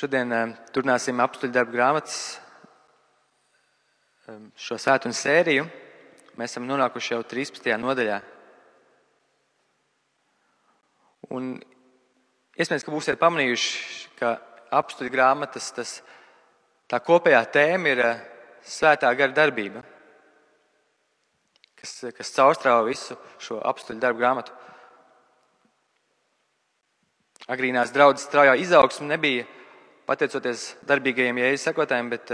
Šodien turpināsim Apostļu darbu grāmatas šo svētdienu sēriju. Mēs esam nonākuši jau 13. nodaļā. Un iespējams, ka būsiet pamanījuši, ka Apostļu grāmatas tā kopējā tēma ir svētā gara darbība, kas caurstrāva visu šo Apostļu darbu grāmatu. Agrīnās draudzes straujā izaugsme nebija pateicoties darbīgajiem Jēzus sekotājiem, bet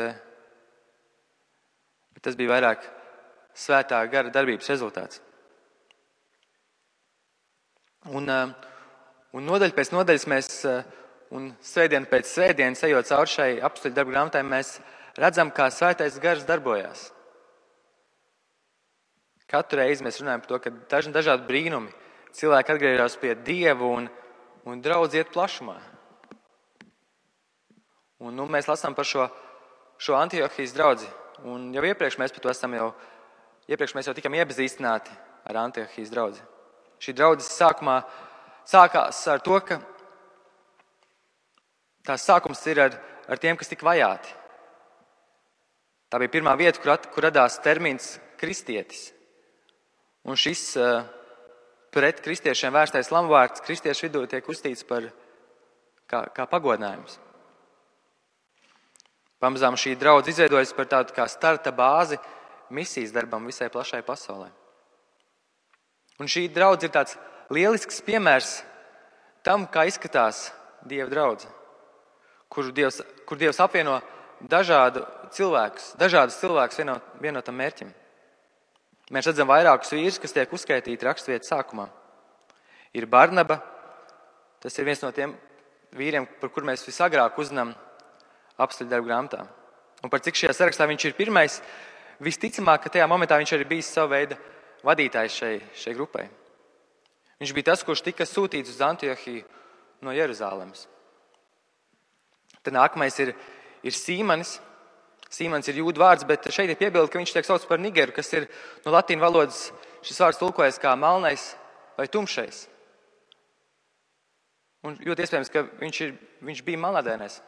tas bija vairāk svētā gara darbības rezultāts. Un nodaļa pēc nodaļas mēs, un svētdienu pēc svētdienas, ejot cauri šai Apostļu darbu grāmatai, mēs redzam, kā svētais gars darbojās. Katru reizi mēs runājam par to, ka dažādi brīnumi, cilvēki atgriežas pie Dievu un draudz iet plašumā. Un mēs lasām par šo Antiohijas draudzi. Un jau iepriekš mēs par to iepriekš mēs jau tikam iepazīstināti ar Antiohijas draudzi. Šī draudzes sākumā sākās ar to, ka tās sākums ir ar tiem, kas tika vajāti. Tā bija pirmā vieta, kur radās termins kristietis. Un šis pret kristiešiem vērstais lamvārds kristiešu vidū tiek uzstīts par kā pagodinājums. Pamazām šī draudze izveidojas par tādu kā starta bāzi misijas darbam visai plašai pasaulē. Un šī draudze ir tāds lielisks piemērs tam, kā izskatās Dieva draudze, kur Dievs apvieno dažādus cilvēkus vienotam mērķim. Mēs redzam vairākus vīrus, kas tiek uzskaitīti raksturvietas sākumā. Ir Barnaba, tas ir viens no tiem vīriem, par kur mēs visagrāk uzzinām Apostļu darbu grāmatā. Un par cik šajā sarakstā viņš ir pirmais, visticamāk, ka tajā momentā viņš arī bijis savu veidu vadītājs šai grupai. Viņš bija tas, kurš tika sūtīts uz Antiohiju no Jeruzālemes. Tad nākamais ir Sīmanis. Sīmans ir jūdu vārds, bet šeit ir piebilde, ka viņš tiek saucts par nigeru, kas ir no latīņu valodas šis vārds tulkojas kā melnais vai tumšais. Un ļoti iespējams, ka viņš bija melnādainais.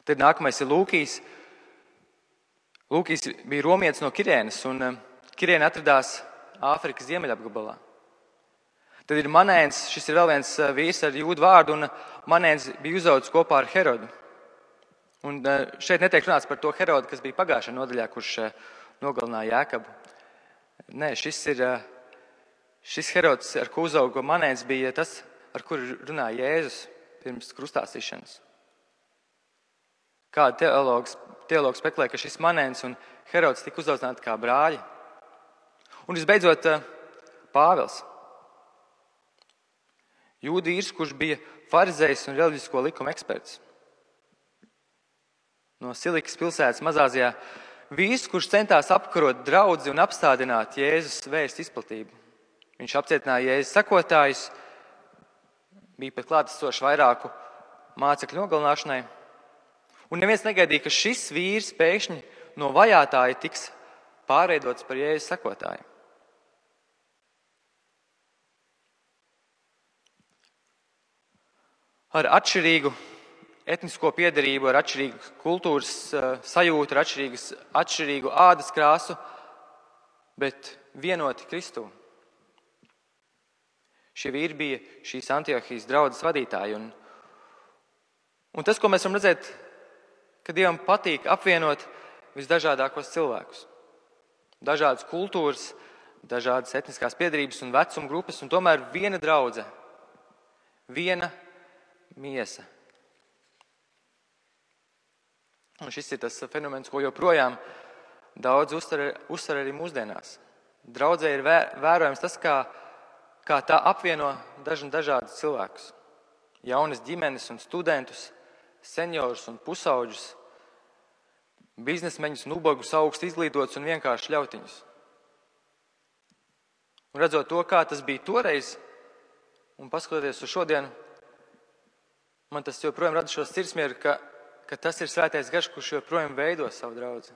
Tad nākamais ir Lūkijs. Lūkijs bija romietis no Kirēnas, un Kirēna atradās Āfrikas ziemeļapgabalā. Tad ir Manēns, šis ir vēl viens vīrs ar jūdu vārdu, un Manēns bija uzaugusi kopā ar Herodu. Un šeit netiek runāts par to Herodu, kas bija pagājušajā nodaļā, kurš nogalināja Jēkabu. Nē, šis Herods, ar ko uzauga Manēns, bija tas, ar kuru runāja Jēzus pirms krustāsīšanas. Kāda teologs spekulē, ka šis Manēns un Herods tika uzaudzināti kā brāļi. Un visbeidzot, Pāvils. Jūdu vīrs, kurš bija farizejs un reliģisko likumu eksperts. No Silikas pilsētas Mazāzijā. Vīrs, kurš centās apkarot draudzi un apstādināt Jēzus vēstu izplatību. Viņš apcietināja Jēzus sekotājus, bija pat klātesošs vairāku mācekļu nogalināšanai. Un neviens negaidīja, ka šis vīrs pēkšņi no vajātāja tiks pārveidots par Jēzus sekotāju. Ar atšķirīgu etnisko piedarību, ar atšķirīgu kultūras sajūtu, ar atšķirīgu ādas krāsu, bet vienoti Kristū. Šie vīri bija šīs Antiohijas draudzes vadītāji. Un tas, ko mēs varam redzēt, ka Dievam patīk apvienot visdažādākos cilvēkus. Dažādas kultūras, dažādas etniskās piedarības un vecuma grupas, un tomēr viena draudze, viena miesa. Un šis ir tas fenomens, ko joprojām daudz uzsver arī mūsdienās. Draudzē ir vērojams tas, kā tā apvieno dažādus cilvēkus. Jaunas ģimenes un studentus, seniorus un pusauģus, biznesmeņus un ubagus, augstu izglītotus un vienkārši ļautiņus. Un redzot to, kā tas bija toreiz, un paskatoties uz šodienu, man tas joprojām rada šo sirdsmieru, ka tas ir svētais gars, kurš joprojām veido savu draudzi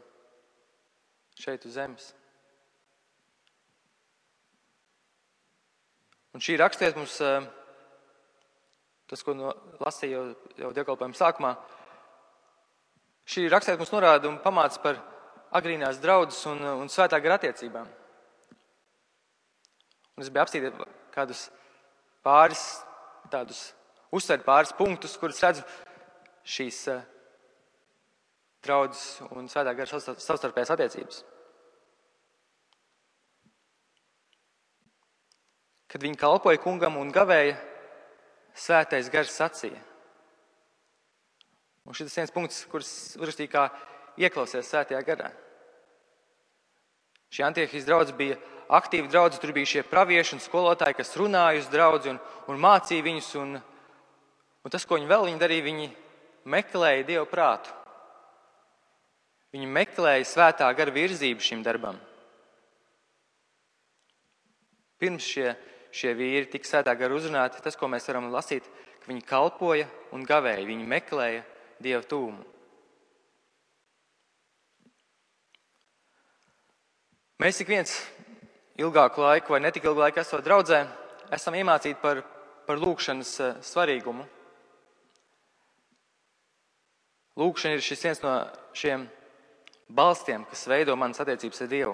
šeit uz zemes. Un šī rakstiet mums tas, ko lasīju jau dievkalpojuma sākumā, šī raksturvieta mums norāda un pamāca par agrīnās draudzes un svētā gara attiecībām. Un es biju apstīt kādus uzsvērt pāris punktus, kurus redzu šīs draudzes un svētā gara savstarpējās attiecības. Kad viņi kalpoja kungam un gavēja, svētais gars sacīja. Un šis viens punkts, kurus uzrakstīja kā ieklausies svētajā garā. Šī Antiohijas draudze bija aktīva draudze, tur bija šie pravieši un skolotāji, kas runāja uz draudzi un mācīja viņus. Un tas, ko viņi darīja, viņi meklēja Dievu prātu. Viņi meklēja svētā gara virzību šim darbam. Pirms šie vīri tika svētā gara uzrunāti, tas, ko mēs varam lasīt, ka viņi kalpoja un gavēja, viņi meklēja Dieva tūmu. Mēs ik viens ilgāku laiku vai netik ilgu laiku esot draudzē, esam iemācīti par lūgšanas svarīgumu. Lūgšana ir šis viens no šiem balstiem, kas veido manas attiecības ar Dievu.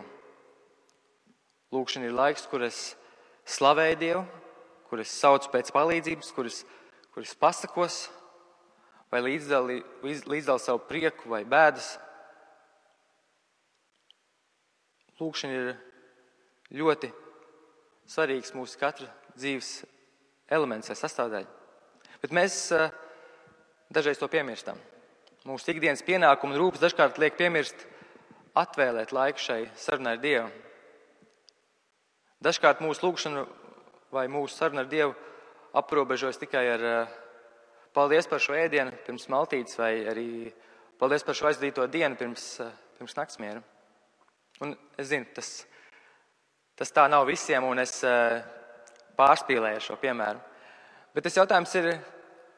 Lūgšana ir laiks, kur es slavēju Dievu, kur es saucu pēc palīdzības, kur es pasakos vai līdzdali savu prieku vai bēdas. Lūgšana ir ļoti svarīgs mūsu katra dzīves elements vai sastāvdaļa. Bet mēs dažreiz to piemirstam. Mūsu ikdienas pienākumu un rūpes dažkārt liek piemirst atvēlēt laiku šai sarunai ar Dievu. Dažkārt mūsu lūgšana vai mūsu saruna ar Dievu aprobežojas tikai ar paldies par šo ēdienu pirms maltītes vai arī paldies par šo aizdīto dienu pirms naktsmiera. Un es zinu, tas tā nav visiem, un es pārspīlēju šo piemēru. Bet tas jautājums ir,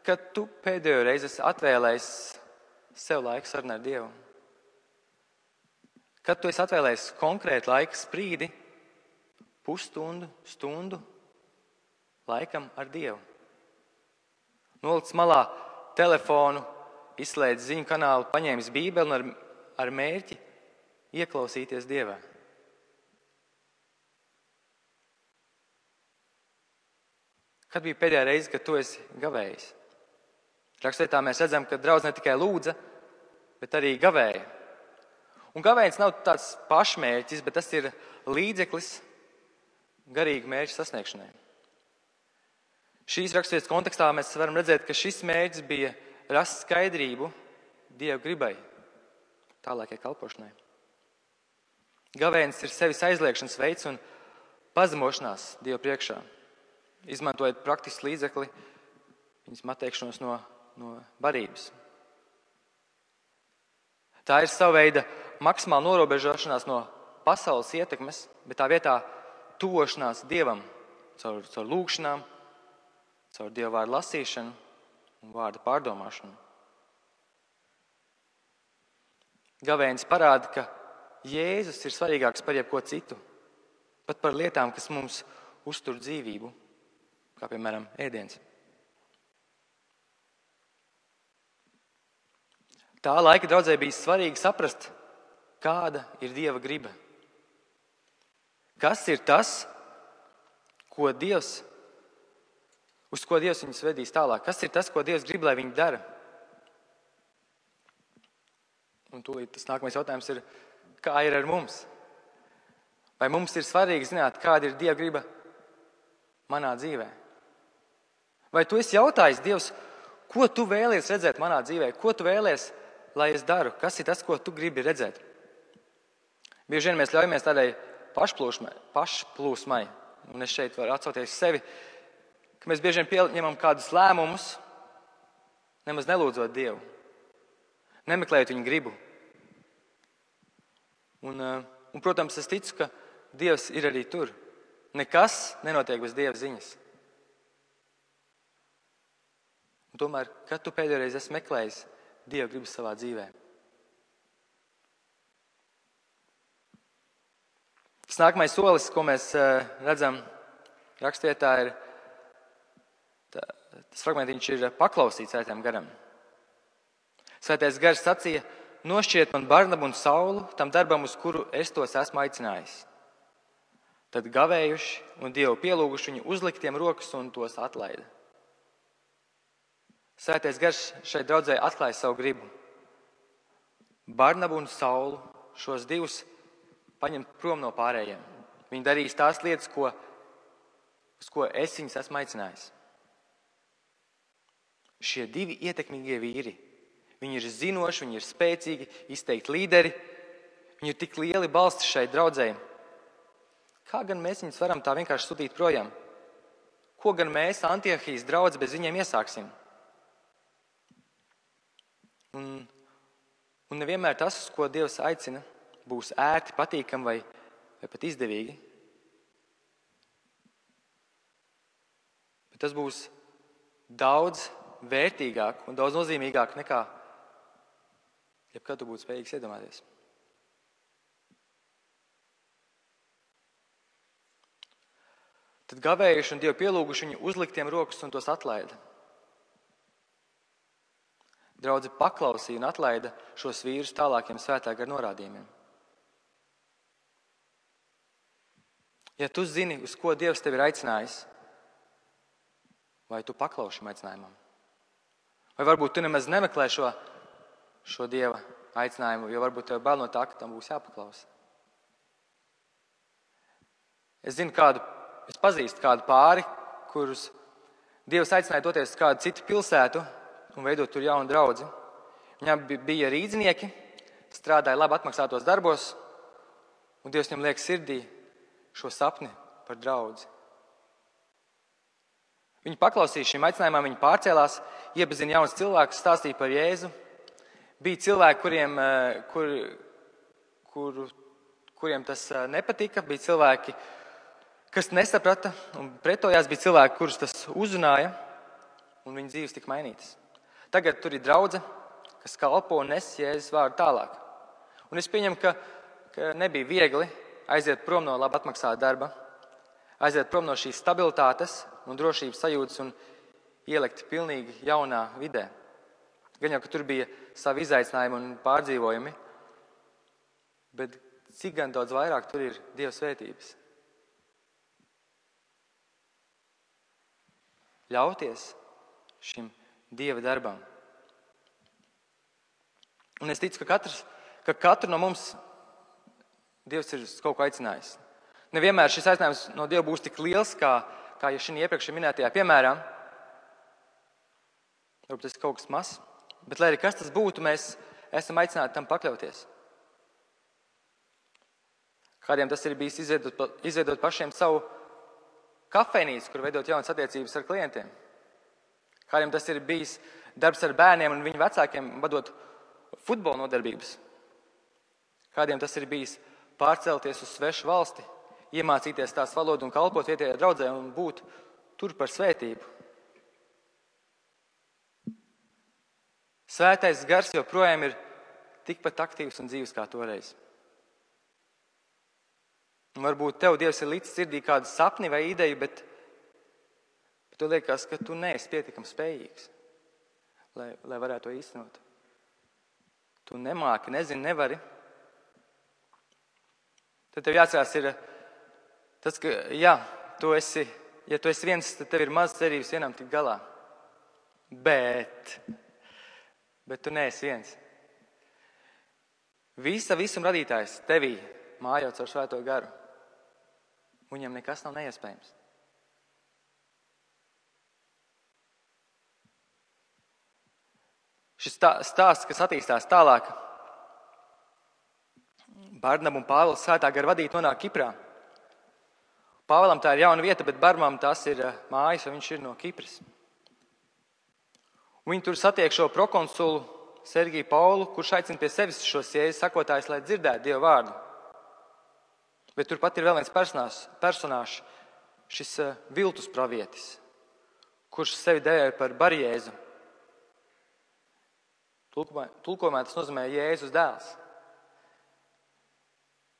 kad tu pēdējo reizi esi atvēlējis sev laiku sarunai ar Dievu? Kad tu esi atvēlējis konkrētu laika sprīdi, pusstundu, stundu laikam ar Dievu? Nolicis malā telefonu, izslēdz ziņu kanālu, paņēmis Bībeli un ar mērķi ieklausīties Dievā. Kad bija pēdējā reize, kad tu esi gavējis? Rakstvietā mēs redzam, ka draudz ne tikai lūdza, bet arī gavēja. Un gavējiens nav tāds pašmērķis, bet tas ir līdzeklis garīgu mērķu sasniegšanai. Šīs raksturvietas kontekstā mēs varam redzēt, ka šis mērķis bija rast skaidrību Dieva gribai, tālākai kalpošanai. Gavējiens ir sevis aizliekšanas veids un pazemošanās Dieva priekšā, izmantojot praktisku līdzekli viņas atteikšanos no barības. Tā ir sava veida maksimāla norobežošanās no pasaules ietekmes, bet tā vietā tuvošanās Dievam caur lūgšanām, caur Dieva vārdu lasīšanu un vārdu pārdomāšanu. Gavējiens parāda, ka Jēzus ir svarīgāks par jebko citu, pat par lietām, kas mums uztur dzīvību, kā piemēram ēdiens. Tā laika draudzē bija svarīgi saprast, kāda ir Dieva griba. Kas ir tas, uz ko Dievs viņus vedīs tālāk? Kas ir tas, ko Dievs grib, lai viņi dara? Un tūlīt tas nākamais jautājums ir, kā ir ar mums? Vai mums ir svarīgi zināt, kāda ir Dieva griba manā dzīvē? Vai tu esi jautājis Dievs, ko tu vēlies redzēt manā dzīvē? Ko tu vēlies, lai es daru? Kas ir tas, ko tu gribi redzēt? Bieži vien mēs ļaujamies tādai pašplūsmai, un es šeit varu atsaukties sevi, ka mēs bieži vien pieņemam kādus lēmumus, nemaz nelūdzot Dievu, nemeklējot viņa gribu. Un, protams, es ticu, ka Dievs ir arī tur. Nekas nenotiek bez Dieva ziņas. Un tomēr, kad tu pēdējo reizi esi meklējis Dieva gribu savā dzīvē? Tas nākamais solis, ko mēs redzam rakstvietā, ir tas fragmentiņš ir paklausīts Svētajam garam. Svētais gars sacīja: nošķiet man Barnabu un Saulu tam darbam, uz kuru es tos esmu aicinājis. Tad gavējuši un Dievu pielūguši viņu uzliktiem rokas un tos atlaida. Svētais gars šeit draudzē atklāja savu gribu. Barnabu un Saulu, šos divus, paņemt prom no pārējiem. Viņi darīs tās lietas, uz ko es viņus esmu aicinājis. Šie divi ietekmīgie vīri, viņi ir zinoši, viņi ir spēcīgi, izteikti līderi, viņi ir tik lieli balsti šai draudzē. Kā gan mēs viņus varam tā vienkārši sūtīt projām? Ko gan mēs, Antiohijas draudze, bez viņiem iesāksim? Un nevienmēr tas, uz ko Dievs aicina, būs ērti, patīkami vai pat izdevīgi. Bet tas būs daudz vērtīgāk un daudz nozīmīgāk nekā jebkad tu būtu spējīgs iedomāties. Tad gavējuši un Dievu pielūguši viņu uzliktiem rokas un tos atlaida. Draudze paklausīja un atlaida šos vīrus tālākiem svētā gara norādījumiem. Ja tu zini, uz ko Dievs tevi ir aicinājis, vai tu paklausi šim aicinājumam? Vai varbūt tu nemaz nemeklē šo Dieva aicinājumu, jo varbūt tev bail no tā, ka tam būs jāpaklausa. Es pazīstu kādu pāri, kurus Dievs aicināja doties uz kādu citu pilsētu un veidot tur jaunu draudzi. Viņam bija rīdznieki, strādāja labi atmaksātos darbos, un Dievs viņam liek sirdī šo sapni par draudzi. Viņi paklausīja šim aicinājumam, viņi pārcēlās, iepazina jaunus cilvēkus, stāstīja par Jēzu. Bija cilvēki, kuriem tas nepatika, bija cilvēki, kas nesaprata un pretojās, bija cilvēki, kurus tas uzrunāja, un viņu dzīves tika mainītas. Tagad tur ir draudze, kas kalpo un nes Jēzus vārdu tālāk. Un es pieņemu, ka nebija viegli aiziet prom no labi atmaksāta darba, aiziet prom no šīs stabilitātes un drošības sajūtas un ielikt pilnīgi jaunā vidē. Gan jau, ka tur bija savi izaicinājumi un pārdzīvojumi, bet cik gan daudz vairāk tur ir Dieva svētības. Ļauties šim Dieva darbam. Un es ticu, ka katru no mums Dievs ir kaut ko aicinājis. Nevienmēr šis aicinājums no Dieva būs tik liels, kā jau šī iepriekš minētajā piemērā. Varbūt tas ir kaut kas mazs, bet lai arī kas tas būtu, mēs esam aicināti tam pakļauties. Kādiem tas ir bijis izveidot pašiem savu kafejnīcu, kur veidot jaunas attiecības ar klientiem. Kādiem tas ir bijis darbs ar bērniem un viņu vecākiem vadot futbola nodarbības. Kādiem tas ir bijis pārcelties uz svešu valsti, iemācīties tās valodu un kalpot vietējai draudzē un būt tur par svētību. Svētais gars joprojām ir tikpat aktīvs un dzīves kā toreiz. Un varbūt tev Dievs ir līdz sirdī kādu sapni vai ideju, bet tu liekas, ka tu neesi pietiekami spējīgs, lai varētu to īstenot. Tu nemāki, nezini, nevari. Tad tev jāatcerās ir tas, ka, ja tu esi viens, tad tev ir maz cerības vienam tikt galā. Bet tu neesi viens. Visam radītājs tevī mājot ar svēto garu. Viņam nekas nav neiespējams. Šis stāsts, kas attīstās tālāk, Barnaba un Pāvils svētā gara vadīti nonāk Kiprā. Pāvilam tā ir jauna vieta, bet Barnabam tas ir mājas, un viņš ir no Kipras. Viņi tur satiek šo prokonsulu Sergiju Paulu, kurš aicina pie sevis šos Jēzus sakotājus, lai dzirdētu Dieva vārdu. Bet turpat ir vēl viens personāžs, šis viltus pravietis, kurš sevi dēvē par Barjēzu. Tulkojumā tas nozīmē Jēzus dēls.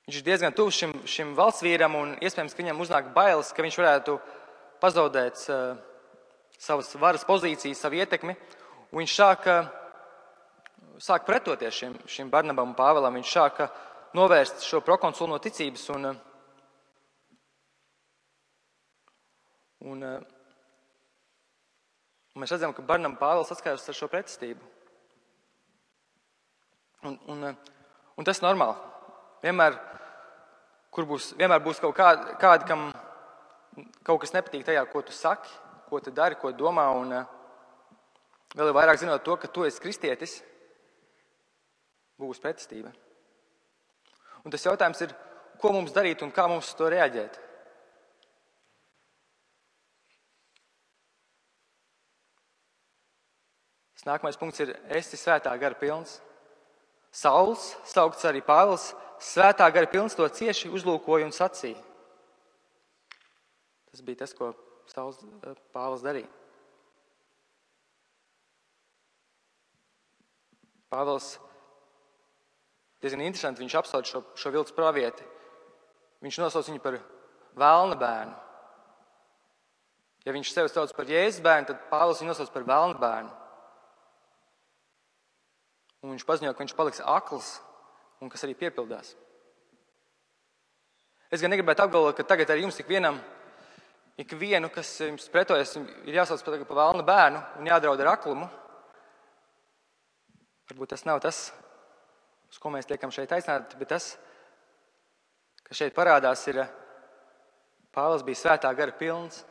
Viņš ir diezgan tuvs šim valsts vīram un iespējams, ka viņam uznāk bailes, ka viņš varētu pazaudēt savas varas pozīcijas, savu ietekmi, un viņš sāk pretoties šim Barnabam un Pāvēlam. Viņš sāka novērst šo prokonsulu no ticības, un mēs redzam, ka Barnaba un Pāvels saskaras ar šo pretestību. Un tas ir normāli. Vienmēr būs kaut kādi, kam kaut kas nepatīk tajā, ko tu saki, ko tu dari, ko domā, un vēl vairāk zinot to, ka tu esi kristietis, būs pretestība. Un tas jautājums ir, ko mums darīt un kā mums uz to reaģēt. Tas nākamais punkts ir, esi svētā gara pilns. Sauls, saukts arī Pāvils, svētā gara pilns, to cieši uzlūkoja un sacīja. Tas bija tas, ko Pāvils darīja. Pāvils diezgan interesanti, viņš apsauc šo viltus pravieti. Viņš nosauc viņu par velna bērnu. Ja viņš sevi sauc par Jēzus bērnu, tad Pāvils viņu nosauc par velna bērnu. Un viņš paziņo, ka viņš paliks akls un kas arī piepildās. Es gan negribētu apgalvot, ka tagad arī jums ikvienu, kas jums pretojas, ir jāsauc par velna bērnu un jādraud ar aklumu. Varbūt tas nav tas, uz ko mēs tiekam šeit aicināti, bet tas, kas šeit parādās, ir Pāvils bija svētā gara pilns.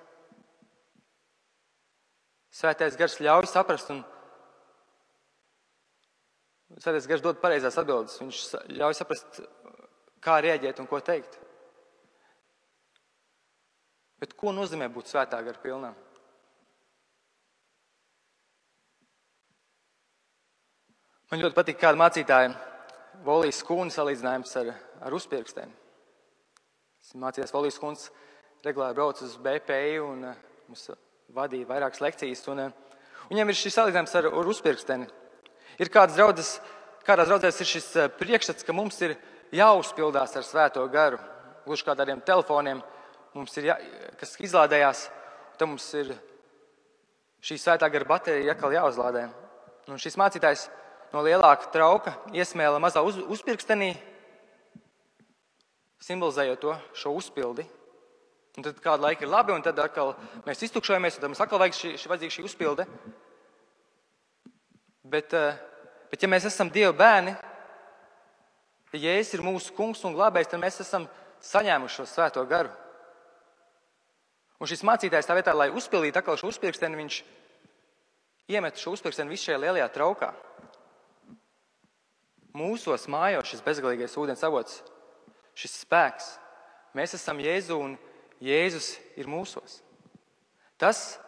Svētais gars ļauj saprast un Svētais gars dod pareizās atbildes. Viņš ļauj saprast, kā rēģēt un ko teikt. Bet ko nozīmē būt svētā gara pilnam? Man ļoti patīk kāda mācītāja Volijas Skūna salīdzinājums ar uzpirksteni. Mācījās Volijas Skūns regulāri brauc uz BPI un mums vadīja vairākas lekcijas. Viņam ir šis salīdzinājums ar uzpirksteni. Ir kādās draudzēs ir šis priekšstats, ka mums ir jāuzpildās ar svēto garu. Gluži kā tādiem telefoniem, kas izlādējās, tad mums ir šī svētā gara baterija atkal jāuzlādē. Un šis mācītājs no lielāka trauka iesmēla mazā uzpirkstenī, simbolizējot šo uzpildi. Un tad kādu laiku ir labi, un tad atkal mēs iztukšojamies, un tad mums atkal vajadzīga šī uzpilde. Bet ja mēs esam Dieva bērni, ja Jēzus ir mūsu kungs un glābējs, tad mēs esam saņēmuši šo svēto garu. Un šis mācītājs tā vietā, lai uzpildītu atkal šo uzpirksteni, viņš iemet šo uzpirksteni visu šajā lielajā traukā. Mūsos mājo šis bezgalīgais ūdens avots, šis spēks. Mēs esam Jēzu un Jēzus ir mūsos. Tas,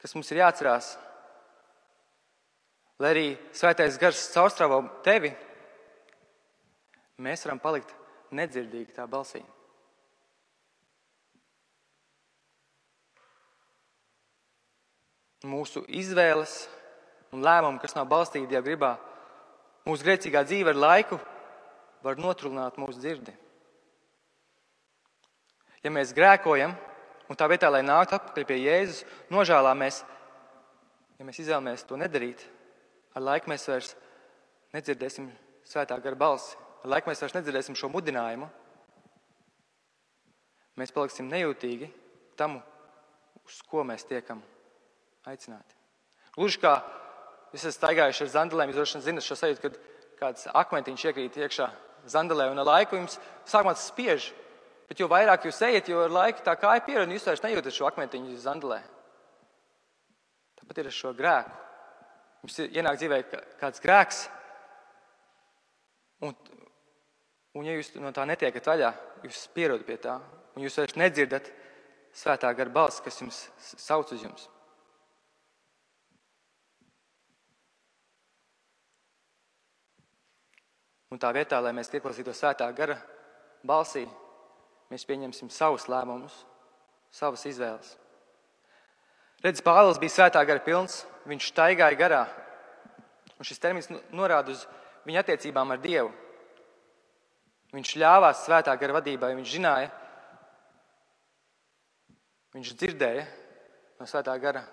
kas mums ir jāatcerās, lai arī svētais gars caurstrāvo tevi, mēs varam palikt nedzirdīgi tā balsī. Mūsu izvēles un lēmumi, kas nav balstīti Dieva gribā, mūsu grēcīgā dzīve ar laiku var notrulināt mūsu dzirdi. Ja mēs grēkojam, un tā vietā, lai nāktu atpakaļ pie Jēzus, nožēlāmies, ja mēs izvēlamies to nedarīt, ar laiku mēs vairs nedzirdēsim svētā gara balsi. Ar laiku mēs vairs nedzirdēsim šo mudinājumu. Mēs paliksim nejūtīgi tam, uz ko mēs tiekam aicināti. Gluži kā jūs esat staigājuši ar zandelēm, jūs droši vien zinat šo sajūtu, kad kāds akmentiņš iekrīt iekšā zandelē, un ar laiku jums sākumā tas spiež. Bet jo vairāk jūs ejat, jo ar laiku tā kāja pierod, un jūs vairs nejūtat šo akmentiņu zandelē. Tāpat ir ar šo grēku. Jums ienāk dzīvē kāds grēks, un ja jūs no tā netiekat vaļā, jūs pierodat pie tā, un jūs vairs nedzirdat svētā gara balsi, kas jums sauc uz jums. Un tā vietā, lai mēs ieklausītos svētā gara balsī, mēs pieņemsim savus lēmumus, savas izvēles. Redz, Pāvils bija svētā gara pilns, viņš staigāja garā. Un šis termins norāda uz viņa attiecībām ar Dievu. Viņš ļāvās svētā gara vadībai, viņš zināja, viņš dzirdēja, no Svētā gara.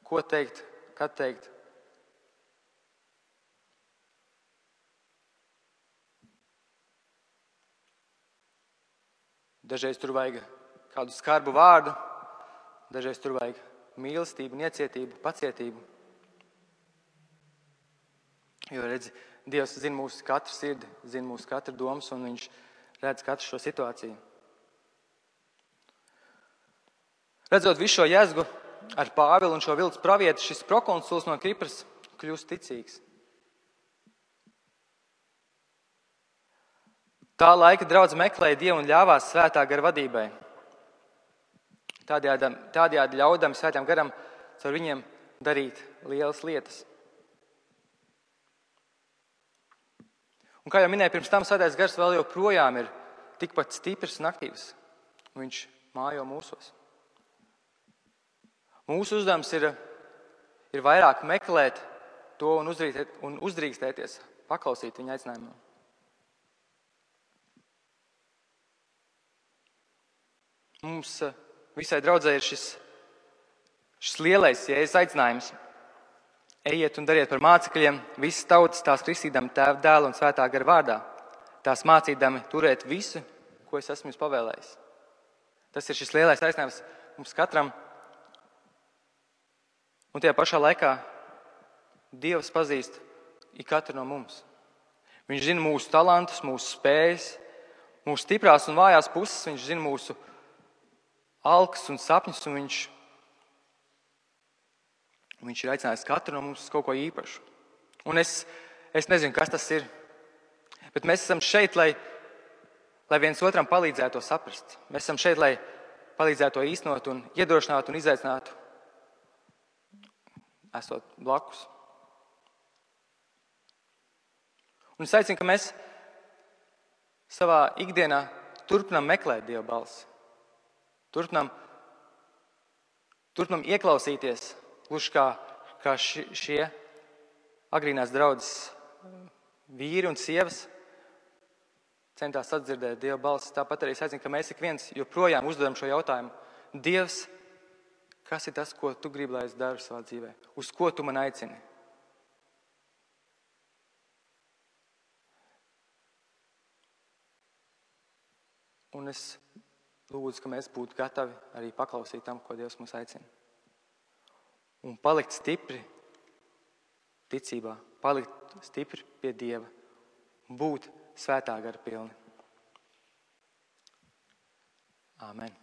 Ko teikt, kad teikt. Dažreiz tur vajag kādu skarbu vārdu, dažreiz tur vajag mīlestību, niecietību, pacietību. Jo, redzi, Dievs zina mūsu katru sirdi, zina mūsu katru domas, un viņš redz katru šo situāciju. Redzot visu šo jēzgu ar Pāvilu un šo viltus pravietu, šis prokonsuls no Kipras kļūst ticīgs. Tā laika draudze meklēja Dievu un ļāvās Svētā gara vadībai. Tādējādi ļaudami Svētajam garam caur viņiem darīt lielas lietas. Un kā jau minēju pirms tam, Svētais gars vēl joprojām ir tikpat stiprs un aktīvs. Viņš mājo mūsos. Mūsu uzdevums ir vairāk meklēt to un uzdrīkstēties, paklausīt viņa aicinājumam. Mums visai draudzē ir šis lielais Jēzus aicinājums. Ejiet un dariet par mācekļiem visas tautas, tās kristīdami Tēva, Dēla un Svētā gara vārdā. Tās mācīdami turēt visu, ko es esmu jums pavēlējis. Tas ir šis lielais aicinājums mums katram. Un tajā pašā laikā Dievs pazīst ikatru no mums. Viņš zina mūsu talantus, mūsu spējas, mūsu stiprās un vājās puses. Viņš zina mūsu alkas un sapņus, un viņš ir aicinājis katru no mums uz kaut ko īpašu. Un es nezinu, kas tas ir, bet mēs esam šeit, lai viens otram palīdzētu to saprast. Mēs esam šeit, lai palīdzētu to īstenot un iedrošinātu un izaicinātu, esot blakus. Un es aicinu, ka mēs savā ikdienā turpinām meklēt Dieva balsi. Turpinām ieklausīties, gluži kā šie agrīnās draudzes vīri un sievas centās atdzirdēt Dieva balsi. Tāpat arī es aicinu, ka mēs ik viens joprojām uzdodam šo jautājumu. Dievs, kas ir tas, ko tu gribi, lai es daru savā dzīvē? Uz ko tu man aicini? Un es lūdzu, ka mēs būtu gatavi arī paklausīt tam, ko Dievs mūs aicina. Un palikt stipri ticībā, palikt stipri pie Dieva, būt Svētā gara pilni. Āmen.